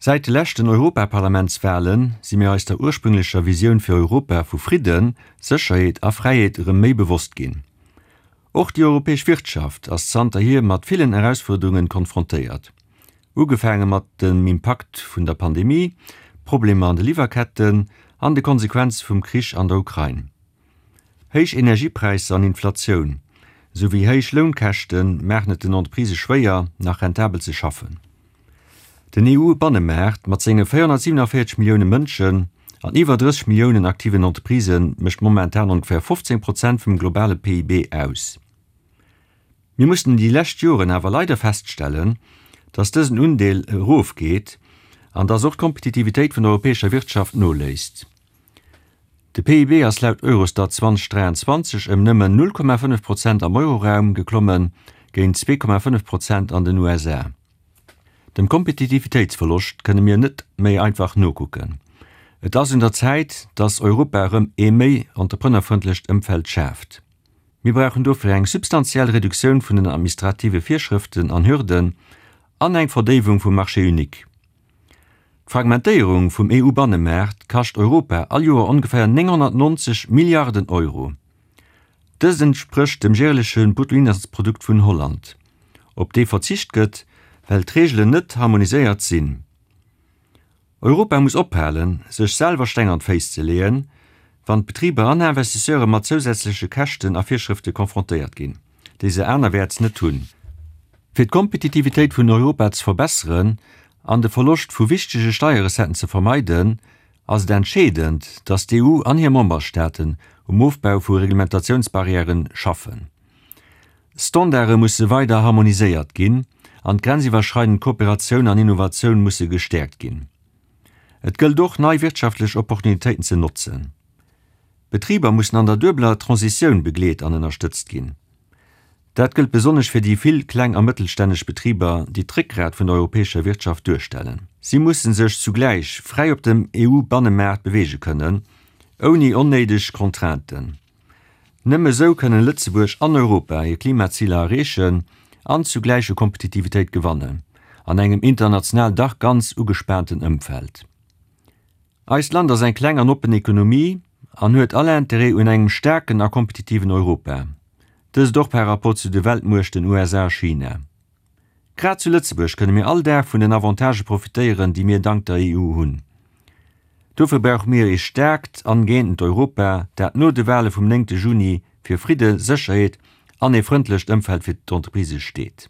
Säit de leschten Europaparlamentswale si mir eis der ursprünglecher Visioun fir Europa vu Fridden, Sécherheet a Fräiheet erëm méi bewosst ginn. Och déi europäesch Wirtschaft ass zanterhier mat villen Erausfuerderungen konfrontéiert. Ugefaange mat dem Impakt vun der Pandemie, Problemer an de Liwwerketten an de Konsequenze vum Krich an der Ukrain. Héich Energiepräisser an Inflatioun, esou wéi héich Lounkäschte maachen et den Entreprisë schwéier, nach rentabel ze schaffen. Den EU-Bannemaart mat senge 447 Millioune Mënschen an iwwer 30 Milliounen aktiven Entreprisë mécht momentan ongeféier 15 Prozent vum globale PIB aus. Mir mussten déi lescht Joren awer leider feststellen, dass dësen Undeel erofgeet an dass och d'Kompetitivitéit vun der europäescher Wirtschaft noléisst. De PIB ass laut Eurostat 2023 ëm nëmmen 0,5 Prozent am Euroraum geklommen, géint 2,5 Prozent an den USA. Dem Kompetitivitéitsverloscht kënne mir net méi einfach nokucken. Et ass un der Zäit, dass Europa erëm ee méi entrepreneurfrëndlecht Ëmfeld schaaft. Mir brauchen dofir eng substantiell Reduktioun vun den administrative Virschrëften an Hürden an eng Verdéiwung vum Marché unique. D'Fragmentéierung vum EU-Bannemaart kascht Europa all Joer ongeféier 990 Milliarden Euro. Dëst entsprécht dem jäerleche Bruttoinlandsprodukt vun Holland, op dee verzicht gëtt, well d'Reegelen net harmoniséiert sinn. Europa muss ophalen, sech selwer Steng an d'Féiss ze leeën, wann d'Betriber an Investisseure mat zousätzleche Käschten a Virschrëfte konfrontéiert ginn, déi se anerwäerts net hunn. Fir d'Kompetitivitéit vun Europa ze verbesseren an de Verloscht vu wichtege Steierrecetten ze vermeiden, ass et entscheedend, datt d'EU an hir Memberstaaten um Ofbau vu Reglementatiounsbarrièren schaffen. Standarde musse weider harmoniséiert ginn an d'grenziwwerschreidend Kooperatioun an Innovatioun musse gestäerkt ginn. Et gëllt och, nei wirtschaftlech Opportunitéiten ze notzen. Betriber mussen an der duebeler Transitioun begleet an ënnerstëtzt ginn. Dat gëllt besonnesch fir déi vill kleng a mëttelstänneg Betriber, déi d'Réckgrat vun der europäescher Wirtschaft duerstellen. Si musse sech zugläich fräi op dem EU-Bannemaart beweege kënnen, ouni onnéideg Contrainten. Nëmme esou kënnen Lëtzebuerg an Europa hir Klimaziler erreechen an zugläich u Kompetitivitéit gewannen, an engem international dach ganz ugespaanten Ëmfeld. Eist Land ass eng kleng an oppen Ekonomie an huet all Interêt un engem staarken a kompetitiven Europa, dëst och par rapport zu de Weltmuechten USA a China. Grad zu Lëtzebuerg kënne mir all Dag vun den Avantagë profitéieren, déi mir dank der EU hunn. Dofir brauche mir ee staarkt an gëeenten Europa, dat no de Wale vum néngte Juni fir Fridde, Sécherheet an ee frëndlecht Ëmfeld fir d'Entreprisë steet.